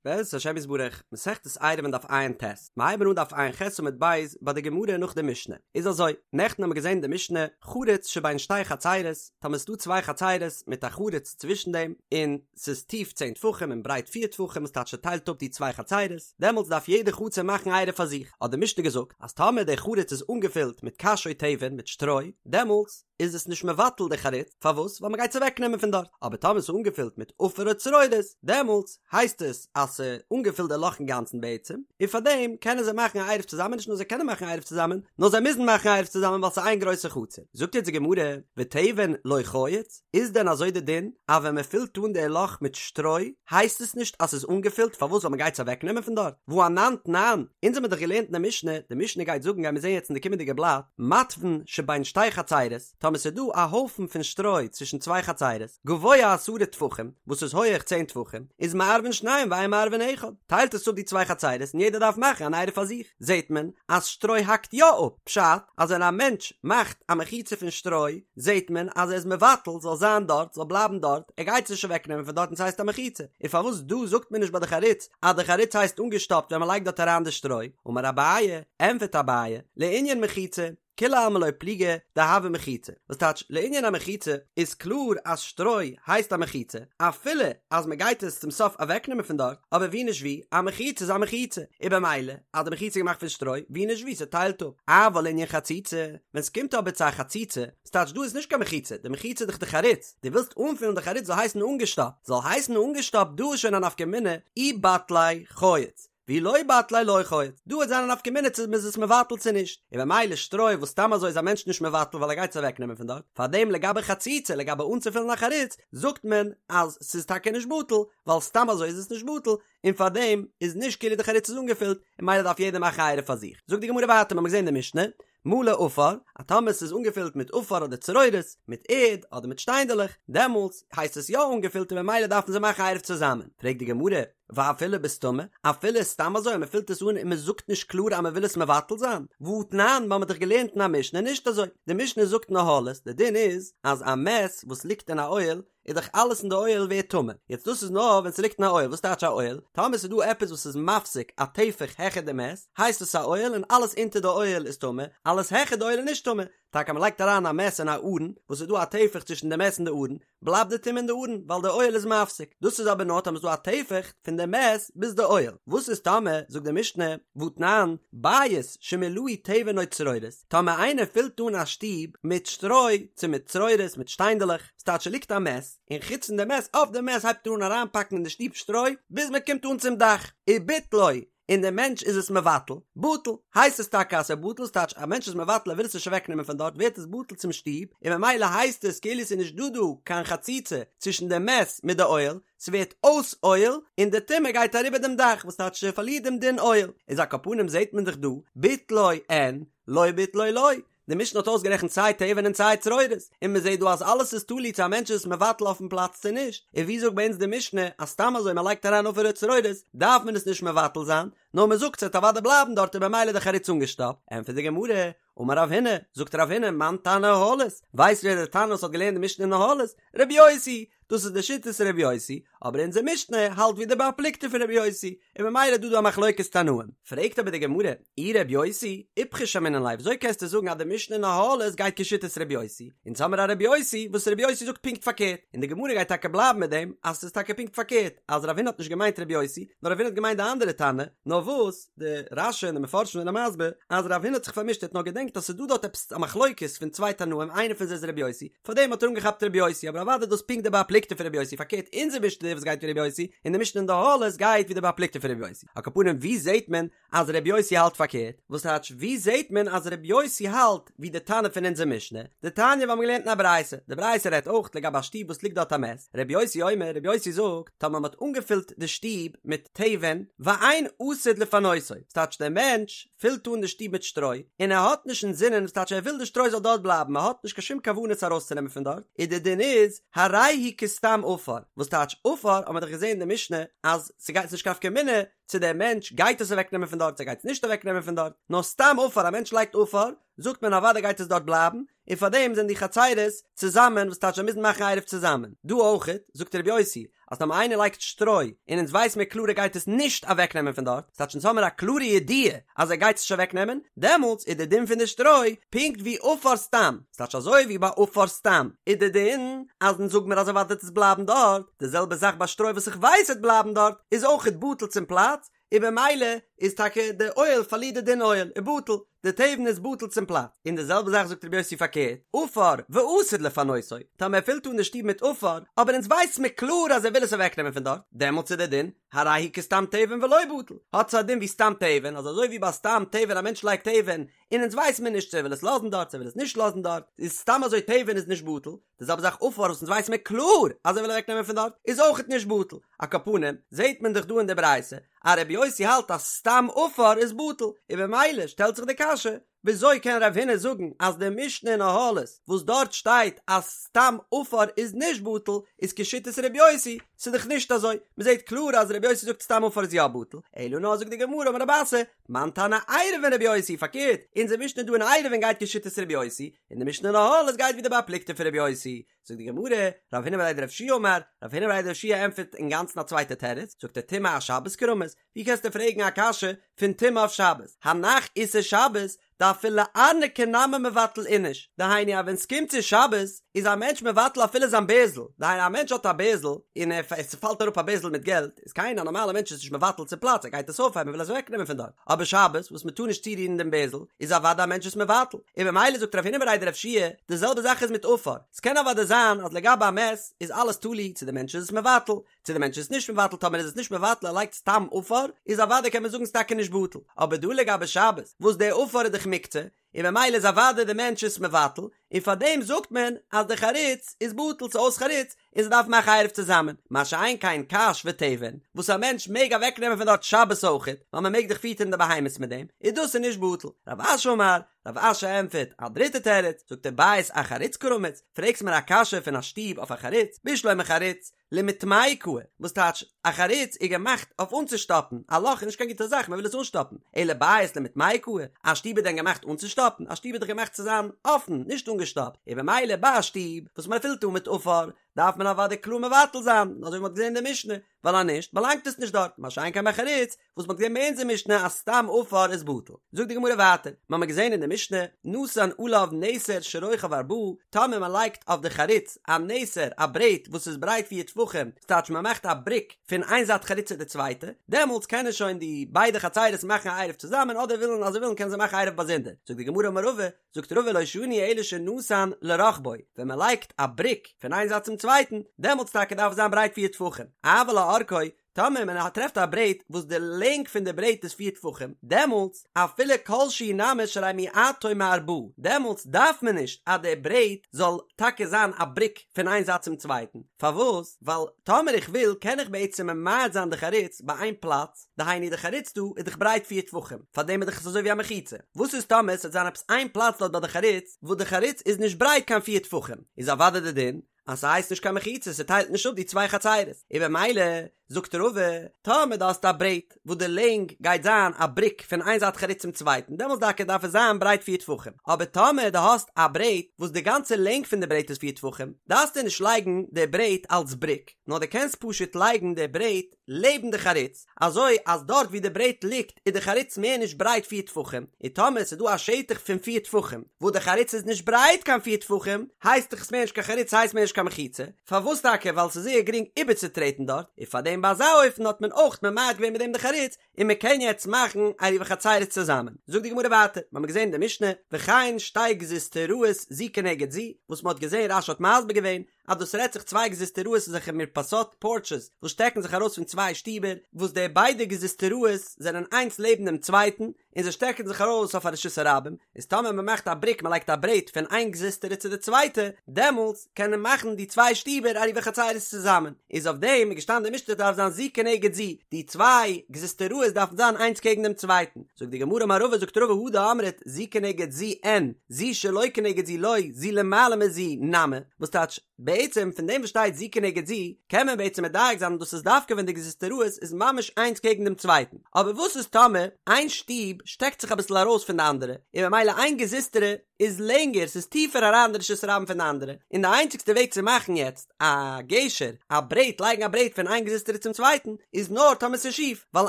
בעזרת השם יתברך, מסכת עירובין דף ע"ט, מ'הייבן אן דף ע"ח עמוד ב' ביי די גמרא נאך די משנה, איז אזוי, נעכטן האמיר געזען די משנה, חריץ שבין שתי חצירות, טאמער ס'דא צוויי חצירות מיט א חריץ צווישן דעם, און ס'איז טיף צען טפחים און ברייט פיר טפחים וואס טייטש ס'טיילט אפ די צוויי חצירות, דעמאלטס דארף יעדע חצר מאכן עירוב פאר זיך, האט די משנה געזאגט אז טאמער די חריץ איז אנגעפילט מיט קש או תבן מיט שטרוי, דעמאלטס איז עס נישט מבטל די חריץ, פארוואס? ווייל מ'גייט עס אוועק נעמען פון דארט, אבער טאמער ס'איז אנגעפילט מיט עפר או צרורות, דעמאלטס הייסט עס אז ס'איז אנגעפילט די לאך אינגאנצן בעצם, און פארדעם קענען זיי מאכן א עירוב צוזאמען, נישט נאר זיי קענען מאכן א עירוב צוזאמען, נאר זיי מוזן מאכן א עירוב צוזאמען ווייל ס'איז איין גרויסע חצר. זאגט יעצט די גמרא, ותבן לא חייץ, איז דען אזוי די דין אז ווען מ'פילט אן די לאך מיט שטרוי הייסט עס נישט אז ס'איז אנגעפילט, פארוואס? ווייל מ'גייט עס אוועק נעמען פון דארט? והא אנן תנן, אונז האמיר דאך געלערנט אין די משנה, די משנה גייט זאגן גיימיר זען יעצט אין די קומענדיגע בלאט, מתבן שבין שתי חצירות, טאמער ס'איז דא א הויפן פון שטרוי צווישן צוויי חצירות, גבוה עשרה טפחים, וואס איז הויעך צען טפחים, איז מערבין שניים ואין מערבין אחד, טיילט עס אפ די צוויי חצירות און יעדער דארף מאכן אן עירוב פאר זיך, זעט מען אז שטרוי האקט יא אפ, פשט אז ווען א מענטש מאכט א מחיצה פון שטרוי, זעט מען אז ער איז מבטל זאל זיין דארט, זאל בלייבן דארט, ער גייט עס נישט אוועק נעמען פון דארט און ס'הייסט א מחיצה, און פארוואס דא זאגט מען נישט ביי די חריץ אז די חריץ הייסט אנגעשטאפט ווען מ'לייגט דארט אריין די שטרוי, אמר אביי, ענפערט אביי, לענין מחיצה, כולי עלמא לא פליגי דהוה מחיצה, וואס טייטש לענין א מחיצה איז קלאר אז שטרוי הייסט א מחיצה אפילו אז מען גייט עס צום סוף אוועקנעמען פון דארט, אבער ווי נישט ווי, א מחיצה איז א מחיצה, און במילא אז די מחיצה איז געמאכט פון שטרוי, ווי נישט ווי ס'טיילט אפ. אבל לענין חציצה, ווען ס'קומט אבער צו א חציצה, וואס טייטש דא איז נישט קיין מחיצה, די מחיצה איז דאך די חריץ, דו ווילסט אנפילן די חריץ זאל הייסן אנגעשטאפט, זאל הייסן אנגעשטאפט דא איז שוין א נפקא מינה אי בטליה חייץ, ואי לא בטליה לא חייץ, דא וועט זיין א נפקא מינה צו מ'איז עס מבטל צו נישט, און במילא שטרוי וואס סתם אזוי איז א מענטש נישט מבטל ווייל ער גייט עס אוועק נעמען פון דארט, פארדעם לגבי חציצה לגבי אנצופילן א חריץ זאגט מען אז ס'איז טאקע נישט בטל ווייל סתם אזוי איז עס נישט בטל און פארדעם איז נישט כאילו די חריץ איז אנגעפילט און מילא דארף יעדער מאכן א עירוב פאר זיך. זאגט די גמרא ווייטער מ'האמיר געזען די משנה מלא עפר, אז טאמער ס'איז אנגעפילט מיט עפר אדער צרורות, מיט ערד אדער מיט שטיינדעלעך, דעמאלטס הייסט עס יא אנגעפילט און ממילא דארפן זיי מאכן עירוב צוזאמען. פרעגט די גמרא, ואפילו בסתמא, אפילו סתם אזוי אז מ'פילט עס אן און מ'זאגט נישט קלאר אז מ'וויל עס מבטל זיין? והתנן, מ'האמיר דאך געלערנט אין א משנה נישט אזוי, די משנה זאגט אין אהלות, די דין איז אז א מת וואס ליגט אין א אוהל, איז דאך אלעס אין די אוהל ווערט טמא, יעצט דאס איז נאר ווען ס'ליגט אין א אוהל, וואס טייטש א אוהל? טאמער ס'איז דא עפעס וואס איז מפסיק א טפח העכער די מת, הייסט עס א אוהל און אלעס אונטער די אוהל איז טמא, אלעס העכער די אוהל איז נישט טמא, טאקע מ'לייגט אריין א מת אין א ארון, וואס איז דא א טפח צווישן די מת און די ארון, בלייבט די טומאה אין די ארון, ווייל די אוהל איז מפסיק, דאס איז אבער נאר טאמער ס'איז דא א טפח פון די מת ביז די אוהל, וואס איז טאמער, זאגט די משנה, והתנן, בית שמילאהו תבן או צרורות, טאמער איינער פילט אן א שטוב מיט שטרוי, צו מיט צרורות, מיט שטיינדעלעך, ס'טייטש ס'ליגט א מת, און חוץ פון די מת אויף די מת הייבט ער אן אריינפאקן אין די שטוב שטרוי, ביז מען קומט אן צום דאך, וביטלו, און דער מענטש איז עס מבטל, בטל, הייסט עס טאקע אז ס'איז בטל, ס'טייטש א מענטש איז מבטל ער וויל עס נישט אוועק נעמען פון דארט ווערט עס בטל צום שטוב, און ממילא הייסט עס כאילו ס'איז נישט דא דא קיין חציצה צווישן די מת מיט די אוהל, ס'ווערט אויס אוהל, און די טומאה גייט אריבער דעם דאך, וואס טייטש ס'פארלירט דעם דין אוהל, איז על כל פנים זעט מען דאך דא, ביטלו אין, לא ביטלו לא, די משנה האט אויסגערעכנט סיי תבן און סיי צרורות, און מען זעט דא אז אלעס איז תלוי צו א מענטש איז עס מבטל אויפן פלאץ צו נישט, און ווי זאגט ביי אונז די משנה אז סתם אזוי מען לייגט אריין עפר וצרורות דארף מען עס נישט מבטל זיין, נאר מען זאגט ס'וועט אוודאי בלייבן דארט און במילא די חריץ אנגעשטאפט, ענטפערט די גמרא, אמר רב הונא, זאגט רב הונא, מאן תנא אהלות, ווייסט ווער דער תנא וואס האט געלערנט די משנה אין אהלות? רבי יוסי, דאס איז די שיטת רבי יוסי, אבער אונזער משנה האלט ווי די בר פלוגתא פון רבי יוסי, און ממילא איז דא דא א מחלוקת תנאים. פרעגט אבער די גמרא, אי רבי יוסי, איפכא שמעינן ליה, וויאזוי קענסטו זאגן אז די משנה אין אהלות גייט כשיטת רבי יוסי? אונז האמיר א רבי יוסי וואס רבי יוסי זאגט פונקט פארקערט, און די גמרא גייט טאקע בלייבן מיט דעם אז ס'איז טאקע פונקט פארקערט, אז רב הונא האט נישט געמיינט רבי יוסי, נאר רב הונא האט געמיינט די אנדערע תנא, נאר וואס, די רש"י און די מפרשים זענען מסביר אז רב הונא האט זיך פארמישט ער האט נאר געדענקט אז ס'איז דא דארט עפעס א מחלוקת פון צוויי תנאים איינער פון זיי איז רבי יוסי, פארדעם האט ער אנגעכאפט רבי יוסי, אבער אוודאי דאס פונקט די בר פלוגתא פון רבי יוסי, פארקערט אונזער משנה וואס גייט ווי רבי יוסי, און די משנה אין די אהלות גייט ווי די בר פלוגתא פון רבי יוסי. על כל פנים ווי זעהט מען אז רבי יוסי האלט פארקערט? וואס טייטש ווי זעהט מען אז רבי יוסי האלט ווי די תנא פון אונזער משנה? דתניא ווי מ'האט געלערנט אין א ברייתא, די ברייתא רעדט אויך לגבי א שטוב וואס ליגט דארט א מת, רבי יוסי אומר, רבי יוסי זאגט, טאמער מ'האט אנגעפילט די שטוב מיט תבן, ואין עתיד לפנותו, ס'טייטש דער מענטש פילט אן די שטוב מיט שטרוי, און ער האט נישט אינזינען, וואס טייטש ער וויל די שטרוי זאל דארט בלייבן, ער האט נישט קיין שום כוונה עס ארויסצונעמען פון דארט, איז די דין איז, הרי הוא כסתם עפר, וואס טייטש עפר, האט מען דאך געזען אין די משנה, אז ס'גייט ס'נישט קיין נפקא מינה צו דער מענטש גייט עס אוועקנעמען פון דארט צו ער גייט עס נישט אוועקנעמען פון דארט, נאר סתם עפר, א מענטש לייגט עפר, זאגט מען אוודאי גייט עס דארט בלייבן, און פאר דעם זענען די חצירות צוזאמען וואס טייטש זיי מוזן מאכן עירוב צוזאמען. דא אויכעט, זאגט רבי יוסי, אז טאמער איינער לייגט שטרוי און אונז ווייס מיר קלאר ער גייט עס נישט אוועקנעמען פון דארט, ס'טייטש אונז האמיר א קלארע ידיעה אז ער גייט עס נישט אוועקנעמען, דעמאלטס איז די דין פון די שטרוי פונקט ווי עפר סתם, ס'טייטש אזוי ווי ביי עפר סתם איז די דין אז אונז זאג מיר אז אוודאי וועט עס בלייבן דארט, די זעלבע זאך ביי שטרוי וואס איך ווייס וועט בלייבן דארט איז אויכעט בטל צום פלאץ, און במילא איז טאקע די אוהל פארלירט די דין אוהל און בטל, די תבן איז בטל צום פלאץ, און די זעלבע זאך זאגט רבי יוסי פארקערט, עפר ועתיד לפנותו, טאמער ער פילט אן די שטוב מיט עפר, אבער אונז ווייס מיר קלאר אז ער וויל עס אוועקנעמען פון דארט, דעמאלטס איז די דין, הרי הוא כסתם תבן ולא בטל, האט עס א דין ווי סתם תבן, אז אזוי ווי ביי סתם תבן א מענטש לייגט תבן, און אונז ווייס מיר נישט צו ער וויל עס לאזן דארט צו ער וויל עס נישט לאזן דארט, איז סתם אזוי תבן איז נישט בטל, די זעלבע זאך עפר וואס אונז ווייס מיר קלאר אז ער וויל אוועק נעמען פון דארט איז אויכעט נישט בטל, על כל פנים זעהט מען דאך דא אין די ברייתא אז רבי יוסי האלט אז סתם עפר איז בטל, און במילא שטעלט זיך די קשיא וויאזוי קען רב הונא זאגן אז די משנה אין אהלות וואס דארט שטייט אז סתם עפר איז נישט בטל איז כשיטת רבי יוסי, ס'איז דאך נישט אזוי, מ'זעהט קלאר אז רבי יוסי זאגט סתם עפר איז יא בטל, אלא נאר זאגט די גמרא אמר רב אסי, מאן תנא עירובין רבי יוסי, פארקערט, אונזער משנה דא אין עירובין גייט כשיטת רבי יוסי, און די משנה אין אהלות גייט ווי די בר פלוגתא פון רבי יוסי, זאגט די גמרא, רב הונא בריה דרב יהושע אמר, רב הונא בריה דרב יהושע ענטפערט אינגאנצן א צווייטע תירוץ, זאגט ער טומאה אשבת קרמית, ווי קענסטו פרעגן א קשיא פון טומאה אויף שבת, הנח איסור שבת, דאפילו ארנקי נמי מבטל איניש, דהיינו אז ווען סקומט צו שבת איז א מענטש מבטל אפילו זיין בערזל, דהיינו א מענטש האט א בערזל און עס פאלט אראפ א בערזל מיט געלט, איז קיין א נארמאלע מענטש איז נישט מבטל צום פלאץ ער גייט עס אויפהייבן וויל עס אוועק נעמען פון דארט, אבער שבת וואס מען טאר נישט צורירן דעם בערזל איז אוודאי א מענטש עס מבטל, און במילא זאגט רב הונא בריה דרב יהושע די זעלבע זאך איז מיט עפר, ס'קען אוודאי זיין אז לגבי א מת איז אלעס תלוי צו די מענטש איז עס מבטל, צו די מענטש איז נישט מבטל טאמער איז עס נישט מבטל ער לייגט סתם עפר איז אוודאי קען מען זאגן ס'טאקע נישט בטל אבער דא לגבי שבת וואס די עפר איז דאך מוקצה און במילא איז אוודאי די מענטש עס מבטל און פארדעם זאגט מען אז די חריץ איז בטל ס'איז אויס חריץ און זיי דארפן מאכן עירוב צוזאמען מה שאין כן קש ותבן וואס א מענטש מעג אוועק נעמען פון דארט שבת אויכעט ווייל מען מעג דאך פיטערן די בהמות מיט דעם איז דאס איז נישט בטל רב אשי אמר רב אשי ענטפערט א דריטע תירוץ זאגט ער בית אחריץ קרמית פרעגסט מיר א קשיא פון א שטוב אויף א חריץ בשלמא חריץ למיטמיה קאי, וואס טייטש, א חריץ איז געמאכט אויף אנצושטאפן, א לאך איז נישט קיין גוטע זאך, מען וויל עס אנשטאפן, אלא בית למיטמיה קאי, א שטוב איז דען געמאכט אנצושטאפן? א שטוב איז דאך געמאכט צו זיין אפן, נישט אנגעשטאפט, און במילא ביי א שטוב וואס מען פילט אן מיט עפר, דארף מען אוודאי קלאר מבטל זיין, אזוי ווי מען האט געזען אין די משנה, ווייל אז נישט באלאנגט עס נישט דארט, מה שאין כן ביי חריץ, וואס מ'האט געזען ביי אונזער משנה אז סתם עפר איז בטל. זאגט די גמרא ווייטער, מ'האמיר געזען אין די משנה, נתן עליו נסר שרוחב ארבעה, טאמער מ'לייגט אויף די חריץ א נסר, א ברעט וואס איז ברייט פיר טפחים, ס'טייטש מ'מאכט א בריק פון איין זייט חריץ צו די צווייטע, דעמאלטס קענען שוין די ביידע חצירות מאכן א עירוב צוזאמען אדער ווילן אז זיי ווילן קענען זיי מאכן עירוב באזונדער. זאגט די גמרא אמר רבא, זאגט רבא לא שנו אלא שנתן לרוחבו, ווען מ'לייגט א בריק פון איין זייט צום צווייטן, דעמאלטס טאקע דארף עס זיין ברייט פיר טפחים, אבל לאורכו, טאמער מען טרעפט א ברעט וואס די לענג פון די ברעט איז פיר טפחים, דעמאלטס אפילו כל שהוא נמי שהרי מיעטו מארבעה, דעמאלטס דארף מען נישט אז די ברעט זאל טאקע זיין א בריק פון איין זייט צום צווייטן, פארוואס? ווייל טאמער איך וויל קען איך בעצם ממעט זיין די חריץ ביי איין פלאץ, דהיינו די חריץ דא איז דאך ברייט פיר טפחים, פארדעם איז דאך עס אזוי ווי א מחיצה, וואס איז טאמער עס וועט זיין עפעס איין פלאץ דארט ביי די חריץ וואס די חריץ איז נישט ברייט קיין פיר טפחים, איז אוודאי די דין אז ס'הייסט נישט קיין מחיצה, ס'טיילט נישט אפ די צוויי חצירות, און במילא זאגט רבא, טאמער דו האסט א ברעט וואס די לענג גייט זיין א בריק פון איין זייט חריץ צום צווייטן, דעמאלטס טאקע דארף עס זיין ברייט פיר טפחים, אבער טאמער דו האסט א ברעט וואס די גאנצע לענג פון די ברעט איז פיר טפחים, דארפסטו נישט לייגן די ברעט אלס בריק, נאר דו קענסט פשוט לייגן די ברעט לעבן די חריץ, אזוי אז דארט ווי די ברעט ליגט איז די חריץ מער נישט ברייט פיר טפחים, און טאמער ס'איז דא א שטח פון פיר טפחים וואס די חריץ איז נישט ברייט קיין פיר טפחים, הייסט דאך עס מער נישט קיין חריץ ס'הייסט מער נישט קיין מחיצה, פארוואס טאקע ווייל ס'איז זייער גרינג איבערצוטרעטן דארט, און פארדעם ביי אזא אופן האט מען אויך ממעט געווען מיט דעם די חריץ, און מען קען יעצט מאכן עירובי חצירות צוזאמען. זאגט די גמרא ווייטער, מ'האמיר געזען אין די משנה, וכן שתי גזוזטראות זו כנגד זו, וואס מ'האט געזען רש"י האט מסביר געווען, אז דאס רעדט זיך צוויי גזוזטראות אזעלכע מרפסות, פארטשעס, וואס שטעקן זיך ארויס פון צוויי שטיבער, וואס די ביידע גזוזטראות זענען איינס לעבן דעם צווייטן, און זיי שטעקן זיך ארויס אויף א רשות הרבים, איז טאמער מען מאכט א בריק מען לייגט א ברעט פון איין גזוזטרא צו די צווייטע, דעמאלטס קען מען מאכן די צוויי שטיבער עירובי חצירות צוזאמען, איז אויף דעם איז געשטאנען די משנה דארף זיין זו כנגד זו, די צוויי גזוזטראות דארפן זיין איינס קעגן דעם צווייטן, זאגט די גמרא אמר רבא זאגט רבא הא דאמרת זו כנגד זו אין, זו שלא כנגד זו לא, זו למעלה מזו נמי, וואס טייטש? בעצם פון דעם וואס שטייט זו כנגד זו, קען מען בעצם מדייק זיין אז דאס איז דווקא ווען די גזוזטראות איז ממש איינס קעגן דעם צווייטן, אבער וואס איז טאמער איין שטוב שטעקט זיך אביסל ארויס פון די אנדערע, און ממילא איין גזוזטרא איז לענגער, ס'איז טיפער אריין אין די רשות הרבים פון די אנדערע, און די איינציגסטע וועג צו מאכן יעצט א גשר, א ברעט, לייגן א ברעט פון איין גזוזטרא צום צווייטן, איז נאר טאמער ס'איז שיף, ווייל